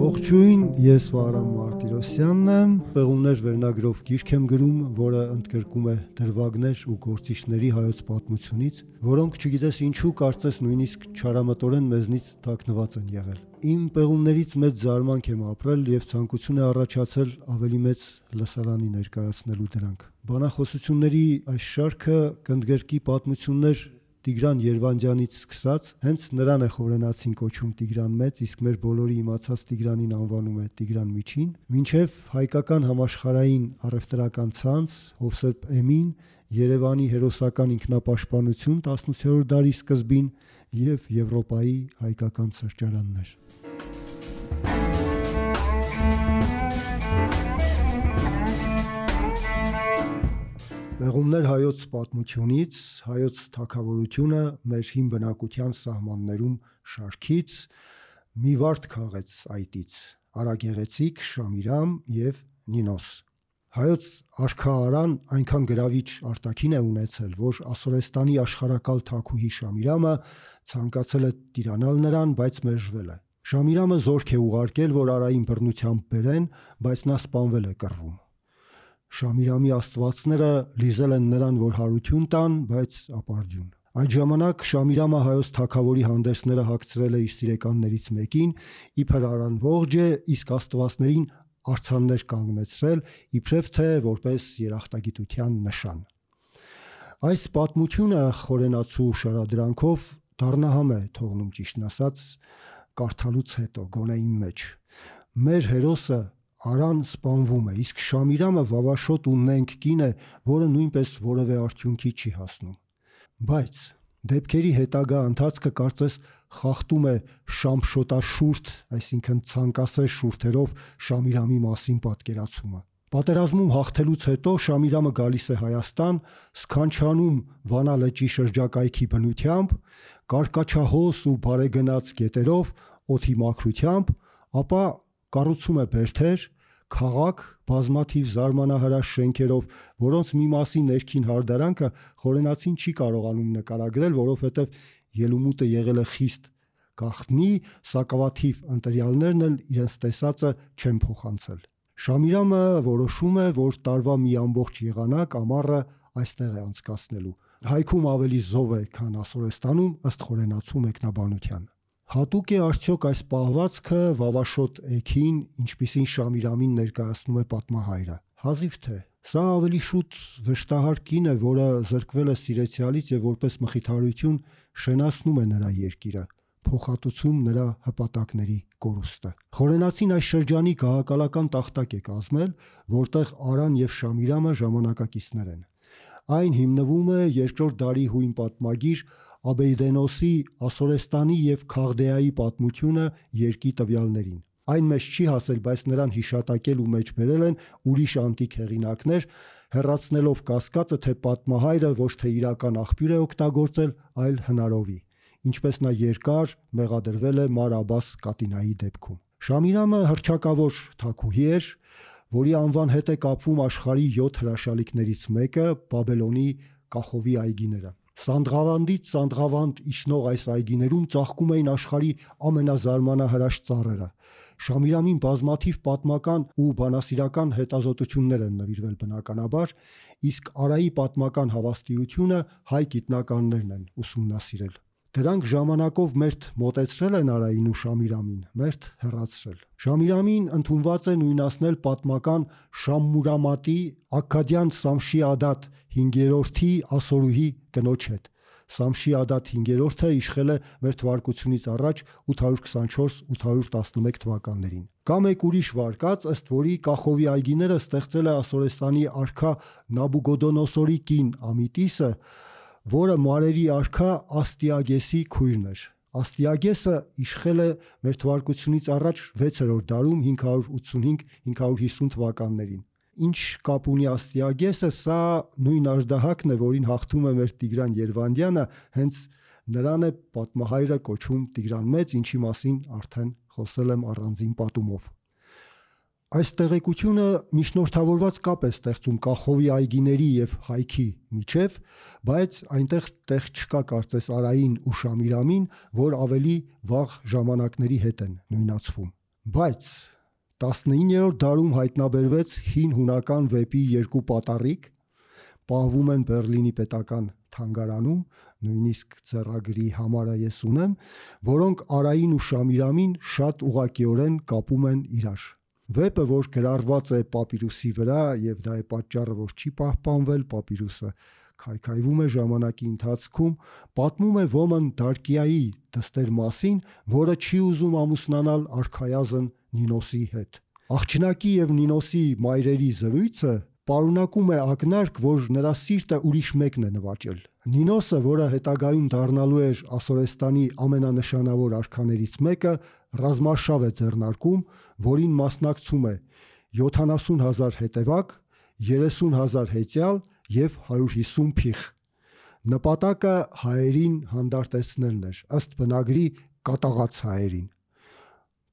Ողջույն, ես Վահրամ Մարտիրոսյանն եմ, Պեղումներ վերնագրով գիրք եմ գրում, որը ընդգրկում է դրվագներ ու գործիչների հայոց պատմությունից, որոնք չգիտես ինչու կարծես նույնիսկ չարամտորեն մեզնից թաքնված են եղել։ Իմ պեղումներից մեծ զարմանք եմ ապրել եւ ցանկություն է առաջացել ավելի մեծ լսարանի ներկայացնելու դրանք։ Բանախոսությունների այս շարքը կընդգրկի պատմություններ Տիգրան Երվանդյանից սկսած, հենց նրան է խորենացին կոչում Տիգրան Մեծ, իսկ մեր բոլորի իմացած Տիգրանին անվանում է Տիգրան Միջին, մինչև հայկական համաշխարհային առևտրական ցանց, Հովսեփ Էմին, Երևանի հերոսական ինքնապաշտպանություն 18-րդ դարի սկզբին եւ Եվրոպայի հայկական սրճարաններ։ Պեղումներ հայոց պատմությունից, հայոց թագավորությունը մեր հին բնակության սահմաններում շարքից մի վարդ քաղեց այտից, Արագեղեցիկ, Շամիրամ եւ Նինոս։ Հայոց արքա Արան այնքան գրավիչ արտաքին է ունեցել, որ Ասորեստանի աշխարհակալ թագուհի Շամիրամը ցանկացել է տիրանալ նրան, բայց մերժվել է։ Շամիրամը զորք է ուղարկել, որ Արային բռնությամբ բերեն, բայց նա սպանվել է կռվում։ Շամիրամի աստվածները լիզել են նրան, որ հարություն տան, բայց ապարդյուն։ Այդ ժամանակ Շամիրամը հայոց թագավորի հանդերձները հագցրել է իր սիրեկաններից մեկին, իբր Արան ողջ է, իսկ աստվածներին արձաններ կանգնեցրել, իբրև թե որպես երախտագիտության նշան։ Այս պատմությունը խորենացու շարադրանքով դառնահամ է թողնում, ճիշտն ասած, կարդալուց հետո, գոնե իմ մեջ։ Մեր հերոսը Արան սպանվում է, իսկ Շամիրամը վավաշոտ ու նենգ կին է, որը նույնպես որևէ արդյունքի չի հասնում։ Բայց դեպքերի հետագա ընթացքը կարծես խախտում է շամշոտաշուրթ, այսինքն ցանկասեր շուրթերով Շամիրամի մասին պատկերացումը։ Պատերազմում հաղթելուց հետո Շամիրամը գալիս է Հայաստան, սքանչանում Վանա լճի շրջակայքի բնությամբ, կարկաչահոս ու բարեգնաց գետերով, օդի մաքրությամբ, ապա կառուցում է բերդեր, քաղաք, բազմաթիվ զարմանահրաշ շենքերով, որոնց մի մասի ներքին հարդարանքը խորենացին չի կարողանում նկարագրել, որովհետև ելումուտը եղել է խիստ գաղտնի, սակավաթիվ ընտրյալներն էլ իրենց տեսածը չեն փոխանցել։ Շամիրամը որոշում է, որ տարվա մի ամբողջ եղանակ ամառը այստեղ է անցկացնելու։ Հայքում ավելի զով է, քան Ասորեստանում, ըստ խորենացու մեկնաբանության։ Հատուկ է արդյոք այս պահվածքը վավաշոտ էգին, ինչպիսին Շամիրամին ներկայացնում է պատմահայրը։ Հազիվ թե։ Սա ավելի շուտ վշտահար կին է, որը զրկվել է սիրեցյալից եւ որպես մխիթարություն շենացնում է նրա երկիրը, փոխհատուցում նրա հպատակների կորուստը։ Խորենացին այս շրջանի գահակալական տախտակ է կազմել, որտեղ Արան եւ Շամիրամը ժամանակակիցներ են։ Այն հիմնվում է 2-րդ դարի հույն պատմագիր Աբեյդենոսի Ասորեստանի եւ Քաղդեայի պատմությունը երկի տվյալներին։ Այն մեզ չի հասել, բայց նրան հիշատակել ու մեջ բերել են ուրիշ անտիկ հեղինակներ, հեռացնելով կասկածը, թե պատմահայրը ոչ թե իրական աղբյուր է օգտագործել, այլ հնարովի, ինչպես նա երկար մեղադրվել է Մար Աբբաս Կատինայի դեպքում։ Շամիրամը հռչակավոր թագուհի էր, որի անվան հետ է կապվում աշխարհի 7 հրաշալիքներից մեկը՝ Բաբելոնի Կախովի այգիները։ Սանդղավանդից Սանդղավանդ իջնող այս այգիներում ծաղկում էին աշխարհի ամենազարմանահրաշ ծառերը։ Շամիրամին բազմաթիվ պատմական ու բանասիրական հետազոտություններ են նվիրվել բնականաբար, իսկ Արայի պատմական հավաստիությունը հայ գիտնականներն են ուսումնասիրել։ Դրանք ժամանակով մերթ մոտեցրել են Արային ու Շամիրամին, մերթ հեռացրել։ Շամիրամին ընդունված է նույնացնել պատմական Շամմուրամատի Աքքադյան Սամշի-Ադատ 5-րդի ասորուհի կնոջ հետ։ Սամշի-Ադատ 5-րդը իշխել է մ.թ.ա. 824-811 թվականներին։ Կա մեկ ուրիշ վարկած, ըստ որի Կախովի այգիները ստեղծել է Ասորեստանի արքա Նաբուգոդոնոսորի կին Ամիտիսը, որը մարերի արքա Աստիագեսի քույրն էր։ Աստիագեսը իշխել է մ.թ.ա. 6-րդ դարում 585-550 թվականներին։ Ինչ կապ ունի Աստիագեսը, սա նույն աժդահակն է, որին հաղթում է մեր Տիգրան Երվանդյանը, հենց նրան է պատմահայրը կոչում Տիգրան Մեծ, ինչի մասին արդեն խոսել եմ առանձին պատումով։ Այս տեղեկությունը միջնորդավորված կապ է ստեղծում Կախովի այգիների եւ հայքի միջև, բայց այնտեղ տեղ չկա կարծես Արային ու Շամիրամին, որ ավելի վաղ ժամանակների հետ են նույնացվում։ Բայց 19-րդ դարում հայտնաբերվեց հին հունական վեպի երկու պատառիկ, պահվում են Բեռլինի պետական թանգարանում, նույնիսկ ձեռագրի համարը ես ունեմ, որոնք Արային ու Շամիրամին շատ ուղղակիորեն կապում են իրար։ Վեպը, որ գրառված է պապիրուսի վրա, եւ դա է պատճառը, որ չի պահպանվել, պապիրուսը քայքայվում է ժամանակի ընթացքում, պատմում է Ոմն Դարկիայի դստեր մասին, որը չի ուզում ամուսնանալ արքայազն Նինոսի հետ։ Աղջնակի եւ Նինոսի մայրերի զրույցը պարունակում է ակնարկ, որ նրա սիրտը ուրիշ մեկն է նվաճել։ Նինոսը, որը հետագայում դառնալու էր Ասորեստանի ամենանշանավոր արքաներից մեկը, ռազմարշավ է ձեռնարկում, որին մասնակցում է 70,000 հետևակ, 30,000 հեծյալ եւ 150 փիխ։ Նպատակը հայերին հանդարտեցնելն էր, ըստ բնագրի կատաղած հայերին։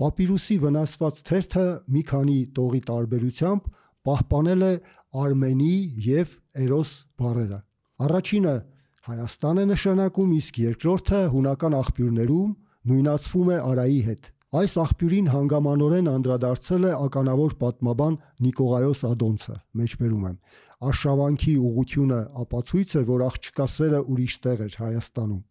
Պապիրուսի վնասված թերթը մի քանի տողի տարբերությամբ պահպանել է Արմենի եւ Էրոս բառերը։ Առաջինը Հայաստան է նշանակում, իսկ երկրորդը հունական աղբյուրներում նույնացվում է Արայի հետ։ Այս աղբյուրին հանգամանորեն անդրադարձել է ականավոր պատմաբան Նիկողայոս Ադոնցը, մեջբերում եմ։ Արշավանքի ուղղությունը ապացույց է, որ աղջկա սերը ուրիշ տեղ էր Հայաստանում։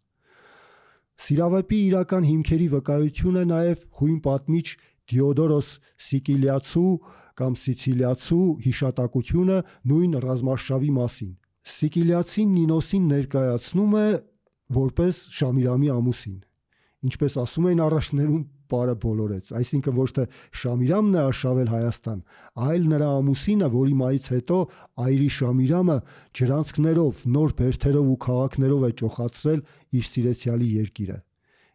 Սիրավեպի իրական հիմքերի վկայություն է նաև հույն պատմիչ Դիոդորոս Սիկիլիացու կամ Սիցիլիացու հիշատակությունը նույն ռազմարշավի մասին։ Սիկիլիացին Նինոսին ներկայացնում է որպես Շամիրամի ամուսին։ Ինչպես ասում էին առաջներում, պարը բոլորեց, այսինքն ոչ թե Շամիրամն է արշավել Հայաստան, այլ նրա ամուսինը, որի մայից հետո այրի Շամիրամը ջրանցքներով, նոր բերդերով ու քաղաքներով է ճոխացրել իր սիրեցյալի երկիրը։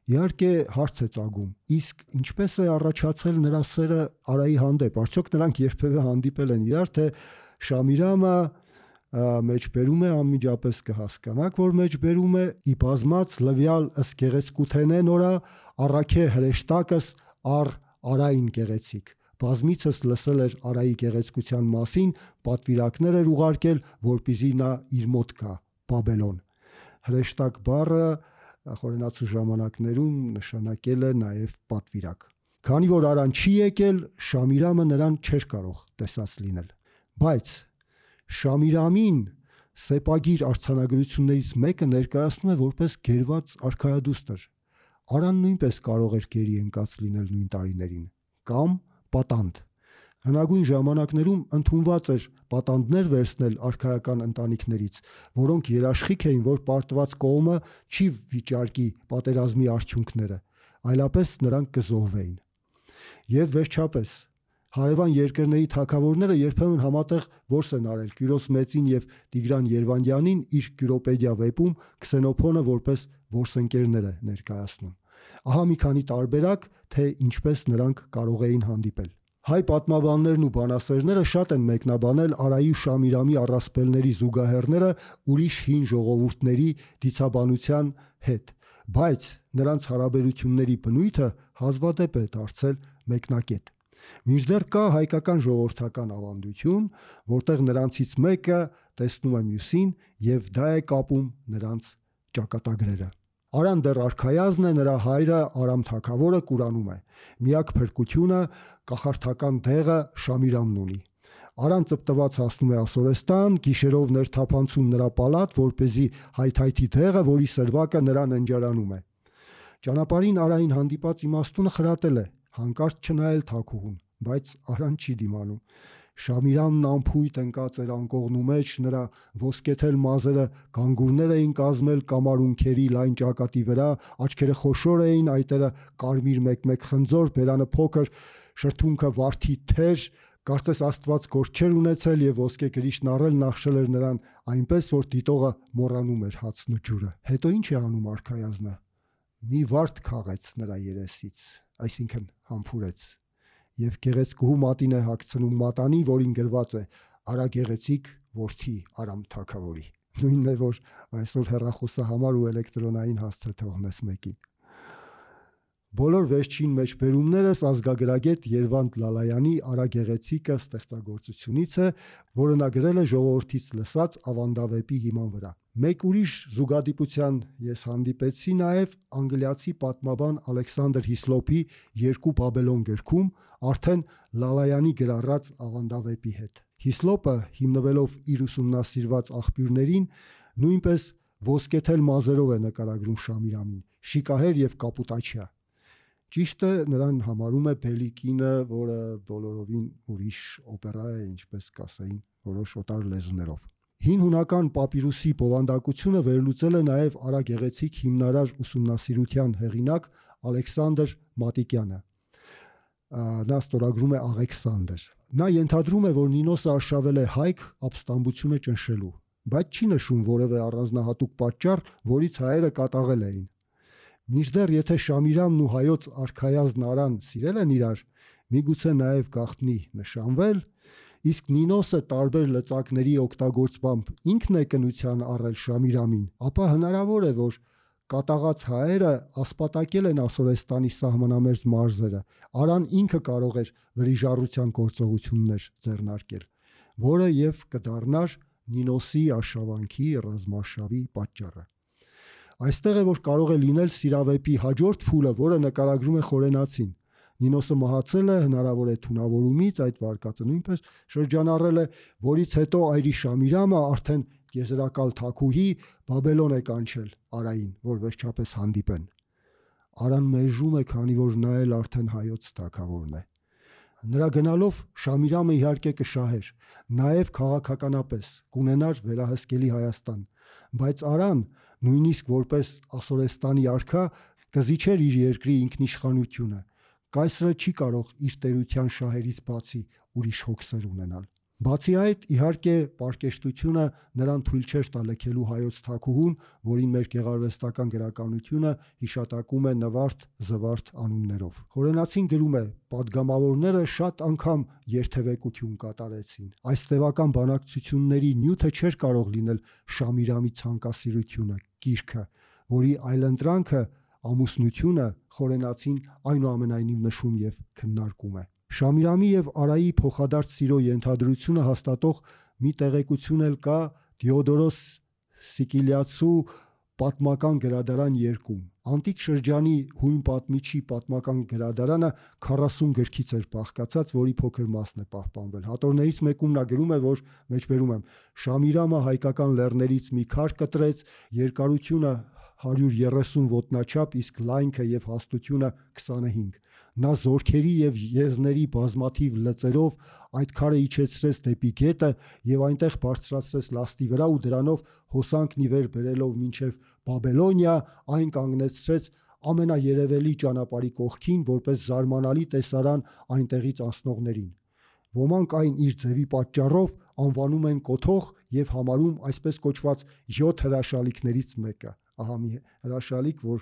Իհարկե հարց է ծագում, իսկ ինչպես է առաջացել նրա սերը Արայի հանդեպ, արդյոք նրանք երբևէ հանդիպել են իրար, թե Շամիրամը մեջբերում է, անմիջապես կհասկանաք, որ մեջբերում է ի բազմած լվյալ ըս գեղեցկութենե նորա առաքե հրեշտակս առ Արային գեղեցիկ։ Բազմիցս լսել էր Արայի գեղեցկության մասին, պատվիրակներ էր ուղարկել, որպեսզի նա իր մոտ գա Բաբելոն։ Հրեշտակ բառը խորենացու ժամանակներում նշանակել է նաև պատվիրակ։ Քանի որ Արան չի եկել, Շամիրամը նրան չէր կարող տեսած լինել։ Բայց Շամիրամին սեպագիր արձանագրություններից մեկը ներկայացնում է որպես գերված արքայադուստր։ Արան նույնպես կարող էր գերի ընկած լինել նույն տարիներին, կամ պատանդ։ Հնագույն ժամանակներում ընդունված էր պատանդներ վերցնել արքայական ընտանիքներից, որոնք երաշխիք էին, որ պարտված կողմը չի վիճարկի պատերազմի արդյունքները, այլապես նրանք կզոհվեին։ Եվ վերջապես հարևան երկրների թագավորները երբեմն համատեղ որս են արել Կյուրոս Մեծին եւ Տիգրան Երվանդյանին իր Կյուրոպեդիա վեպում Քսենոփոնը որպես որսընկերներ է ներկայացնում։ Ահա մի քանի տարբերակ, թե ինչպես նրանք կարող էին հանդիպել։ Հայ պատմաբաններն ու բանասերները շատ են մեկնաբանել Արայի ու Շամիրամի առասպելների զուգահեռները ուրիշ հին ժողովուրդների դիցաբանության հետ, բայց նրանց հարաբերությունների բնույթը հազվադեպ է դարձել մեկնակետ։ Մինչդեռ կա հայկական ժողովրդական ավանդություն, որտեղ նրանցից մեկը տեսնում է մյուսին եւ դա է կապում նրանց ճակատագրերը։ Արան դեռ արքայազն է, նրա հայրը Արամ թագավորը Կուրանում է։ Միակ փրկությունը կախարդական դեղը Շամիրամն ունի։ Արան ծպտված հասնում է Ասորեստան, գիշերով ներթափանցում նրա պալատ, որպեսզի հայթայթի դեղը, որի սրվակը նրան ընջարանում է։ Ճանապարհին Արային հանդիպած իմաստունը խրատել է, հանկարծ չնայել թագուհուն, բայց Արան չի դիմանում։ Շամիրամն ամփույթ ընկած էր անկողնու մեջ, նրա ոսկեթել մազերը գանգուրներ էին կազմել կամարունքերի լայն ճակատի վրա, աչքերը խոշոր էին, այտերը կարմիր մեկ-մեկ խնձոր, բերանը փոքր, շրթունքը վարդի թեր, կարծես Աստված գործ չէր ունեցել եւ ոսկե գրիշն առել նախշել էր նրան այնպես, որ դիտողը մոռանում էր հացն ու ջուրը։ Հետո ինչ է անում արքայազնը։ Մի վարդ քաղեց նրա երեսից, այսինքն համբուրեց, եւ գեղեցկուհու մատին է հագցնում մատանի, որին գրված է Արա գեղեցիկ որդի Արամ թագավորի։ Նույնն է, որ այսօր հեռախոսահամար ու էլեկտրոնային հասցե թողնես մեկին։ Բոլոր վերջին մեջբերումներս ազգագրագետ Երվանդ Լալայանի Արագեղեցիկը ստեղծագործությունից է, որը նա գրել է ժողովրդից լսած ավանդավեպի հիման վրա։ Մեկ ուրիշ զուգադիպության ես հանդիպեցի նաև անգլիացի պատմաբան Ալեքսանդր Հիսլոպի Երկու Բաբելոն գրքում, արդեն Լալայանի գրառած ավանդավեպի հետ։ Հիսլոպը, հիմնվելով իր ուսումնասիրված աղբյուրներին, նույնպես ոսկեթել մազերով է նկարագրում Շամիրամին, շիկահեր եւ կապուտաչյա։ Ճիշտը նրան համարում է Բելիկինը, որը բոլորովին ուրիշ օպերա է, ինչպես կասեին որոշ օտար լեզուներով։ Հին հունական պապիրուսի բովանդակությունը վերլուծել է նաև Արագեղեցիկ հիմնարար ուսումնասիրության հեղինակ Ալեքսանդր Մատիկյանը։ Նա ստորագրում է Աղեքսանդր։ Նա ենթադրում է, որ Նինոսը արշավել է հայք ապստամբությունը ճնշելու, բայց չի նշում որևէ առանձնահատուկ պատճառ, որից հայերը կատաղել էին։ Մինչդեռ եթե Շամիրամն ու հայոց արքայազն Արան սիրել են իրար, միգուցե նաև գաղտնի նշանվել, իսկ Նինոսը տարբեր լծակների օգտագործմամբ ինքն է կնության առել Շամիրամին, ապա հնարավոր է, որ կատաղած հայերը ասպատակել են Ասորեստանի սահմանամերձ մարզերը, Արան ինքը կարող էր վրիժառության գործողություններ ձեռնարկել, որը եւ կդառնար Նինոսի արշավանքի ռազմարշավի պատճառը։ Այստեղ է, որ կարող է լինել սիրավեպի հաջորդ փուլը, որը նկարագրում է Խորենացին։ Նինոսը մահացել է, հնարավոր է թունավորումից, այդ վարկածը նույնպես շրջանառել է, որից հետո այրի Շամիրամը արդեն եզրակալ թագուհի Բաբելոն է կանչել Արային, որ վերջապես հանդիպեն։ Արան մերժում է, քանի որ նա էլ արդեն հայոց թագավորն է։ Նրա գնալով Շամիրամը իհարկե կշահեր, նաև քաղաքականապես կունենար վերահսկելի Հայաստան, բայց Արան, նույնիսկ որպես Ասորեստանի արքա, կզիջեր իր երկրի ինքնիշխանությունը։ Կայսրը չի կարող իր տերության շահերից բացի ուրիշ հոգսեր ունենալ։ Բացի այդ, իհարկե, պարկեշտությունը նրան թույլ չէր տա լքելու հայոց թագուհուն, որին մեր գեղարվեստական գրականությունը հիշատակում է Նվարդ, Զվարթ անուններով։ Խորենացին գրում է. «Պատգամավորները շատ անգամ երթևեկություն կատարեցին։ Այս տևական բանակցությունների նյութը չէր կարող լինել Շամիրամի ցանկասիրությունը, կիրքը, որի այլընտրանքը, ամուսնությունը Խորենացին այնուամենայնիվ նշում եւ քննարկում է։ Շամիրամի եւ Արայի փոխադարձ սիրո ենթադրությունը հաստատող մի տեղեկություն էլ կա Դիոդորոս Սիկիլիացու պատմական գրադարան 2-ում։ Անտիկ շրջանի հույն պատմիչի պատմական գրադարանը 40 գրքից էր բաղկացած, որի փոքր մասն է պահպանվել։ Հատորներից մեկում նա գրում է, որ մեջբերում եմ. Շամիրամը հայկական լեռներից մի քար կտրեց, երկարությունը 130 ոտնաչափ, իսկ լայնքը եւ հաստությունը 25։ Նա զորքերի եւ եզների բազմաթիվ լծերով այդ քարը իջեցրեց դեպի գետը եւ այնտեղ բարձրացրեց լաստի վրա ու դրանով հոսանքն ի վեր բերելով մինչեւ Բաբելոնիա, այն կանգնեցրեց ամենաերևելի ճանապարհի կողքին, որպես զարմանալի տեսարան այնտեղից անցնողներին։ Ոմանք այն իր ձևի պատճառով անվանում են կոթող եւ համարում այսպես կոչված 7 հրաշալիքներից մեկը։ Ահա մի հրաշալիք, որ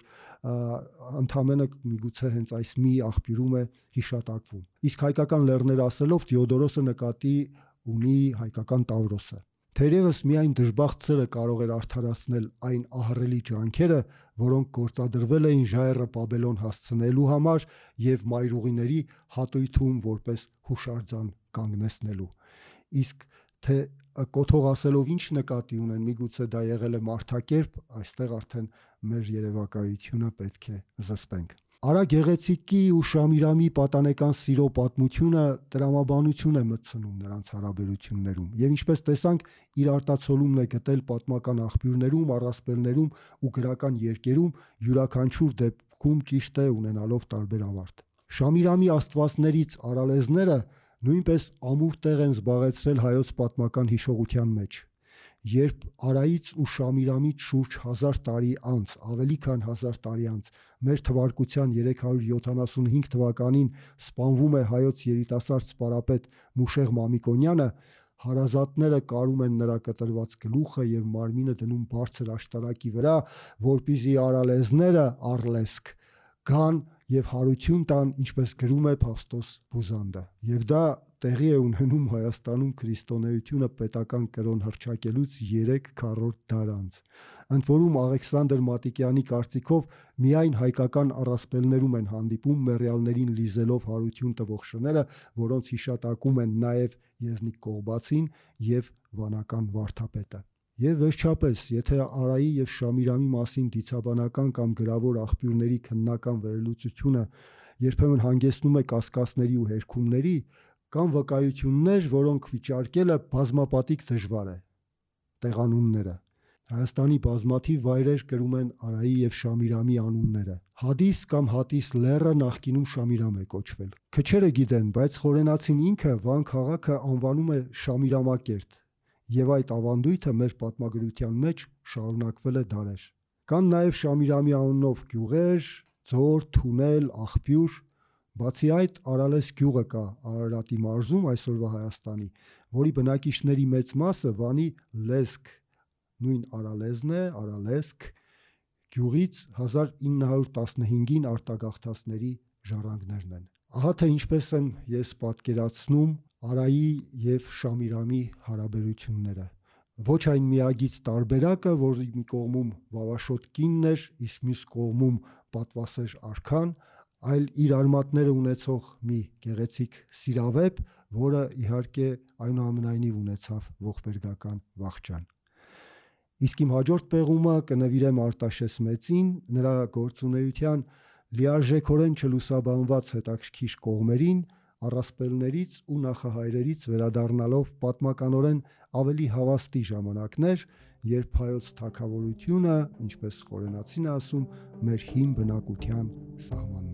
ընդամենը միգուցե հենց այս մի աղբյուրում է հիշատակվում։ Իսկ հայկական լեռներ ասելով Դիոդորոսը նկատի ունի հայկական Տավրոսը։ Թերևս միայն դժբախտ սերը կարող էր արդարացնել այն ահռելի ջանքերը, որոնք գործադրվել էին ժայռը Բաբելոն հասցնելու համար եւ մայրուղիների հատույթում որպես հուշարձան կանգնեցնելու։ Իսկ թե կոթող ասելով ինչ նկատի ունեն, միգուցե դա եղել է մարդակերպ, այստեղ արդեն մեր երևակայությունը պետք է զսպենք։ Արագեղեցիկի ու Շամիրամի պատանեկան սիրո պատմությունը տրամաբանություն է մտցնում նրանց հարաբերություններում եւ ինչպես տեսանք, իր արտացոլումն է գտել պատմական աղբյուրներում, առասպելներում ու գրական երկերում, յուրաքանչյուր դեպքում ճիշտ է ունենալով տարբեր ավարտ։ Շամիրամի աստվածներից արալեզները նույնպես ամուր տեղ են զբաղեցրել հայոց պատմական հիշողության մեջ։ Երբ Արայից ու Շամիրամից շուրջ 1000 տարի անց, ավելի քան 1000 տարի անց, մեր թվարկության 375 թվականին սպանվում է հայոց երիտասարդ սպարապետ Մուշեղ Մամիկոնյանը, հարազատները կարում են նրա կտրված գլուխը եւ մարմինը դնում բարձր աշտարակի վրա, որպեսզի արալեզները առլեսք գան եւ հարություն տան, ինչպես գրում է Փավստոս Բուզանդը։ Եվ դա տեղի է ունենում Հայաստանում քրիստոնեությունը պետական կրոն հռչակելուց 3 քառորդ դար անց։ Ընդ որում Աղեքսանդր Մատիկյանի կարծիքով միայն հայկական առասպելներում են հանդիպում մեռյալներին լիզելով հարություն տվող շները, որոնց հիշատակում են նաև Եզնիկ Կողբացին եւ վանական վարդապետը։ Եվ վերջապես, եթե Արայի եւ Շամիրամի մասին դիցաբանական կամ գրավոր աղբյուրների քննական վերլուծությունը երբեմն հանգեցնում է կասկածների ու հերքումների, կան վկայություններ, որոնք վիճարկելը բազմապատիկ դժվար է։ Տեղանունները Հայաստանի բազմաթիվ վայրեր կրում են Արայի եւ Շամիրամի անունները։ Հադիս կամ Հատիս լեռը նախկինում Շամիրամ է կոչվել։ Քչերը գիտեն, բայց խորենացին ինքը Վան քաղաքը անվանում է Շամիրամակերտ, եւ այդ ավանդույթը մեր պատմագրության մեջ շարունակվել է դարեր։ Կան նաեւ Շամիրամի անունով գյուղեր, ձոր, թունել, աղբյուր։ Բացի այդ, Արալես գյուղը կա Արարատի մարզում, այսօրվա Հայաստանի, որի բնակիչների մեծ մասը Վանի Լեսկ, նույն Արալեզն է, Արալեսկ գյուղից 1915-ին արտագաղթածների ժառանգներն են։ Ահա թե ինչպես եմ ես պատկերացնում Արայի եւ Շամիրամի հարաբերությունները։ Ոչ այն միագից տարբերակը, որ մի կողմում Վավաշոտ կինն էր, իսկ մյուս կողմում պատվասեր արքան, այլ իր արմատները ունեցող մի գեղեցիկ սիրավեպ, որը իհարկե այնուամենայնիվ ունեցավ ողբերգական վախճան։ Իսկ իմ հաջորդ պեղումը կնվիրեմ Արտաշես մեծին, նրա գործունեության լիարժեքորեն չլուսաբանված հետաքրքիր կողմերին, առասպելներից ու նախահայրերից վերադառնալով պատմականորեն ավելի հավաստի ժամանակներ, երբ հայոց թագավորությունը, ինչպես խորենացին ասում, մեր հին բնակության սահման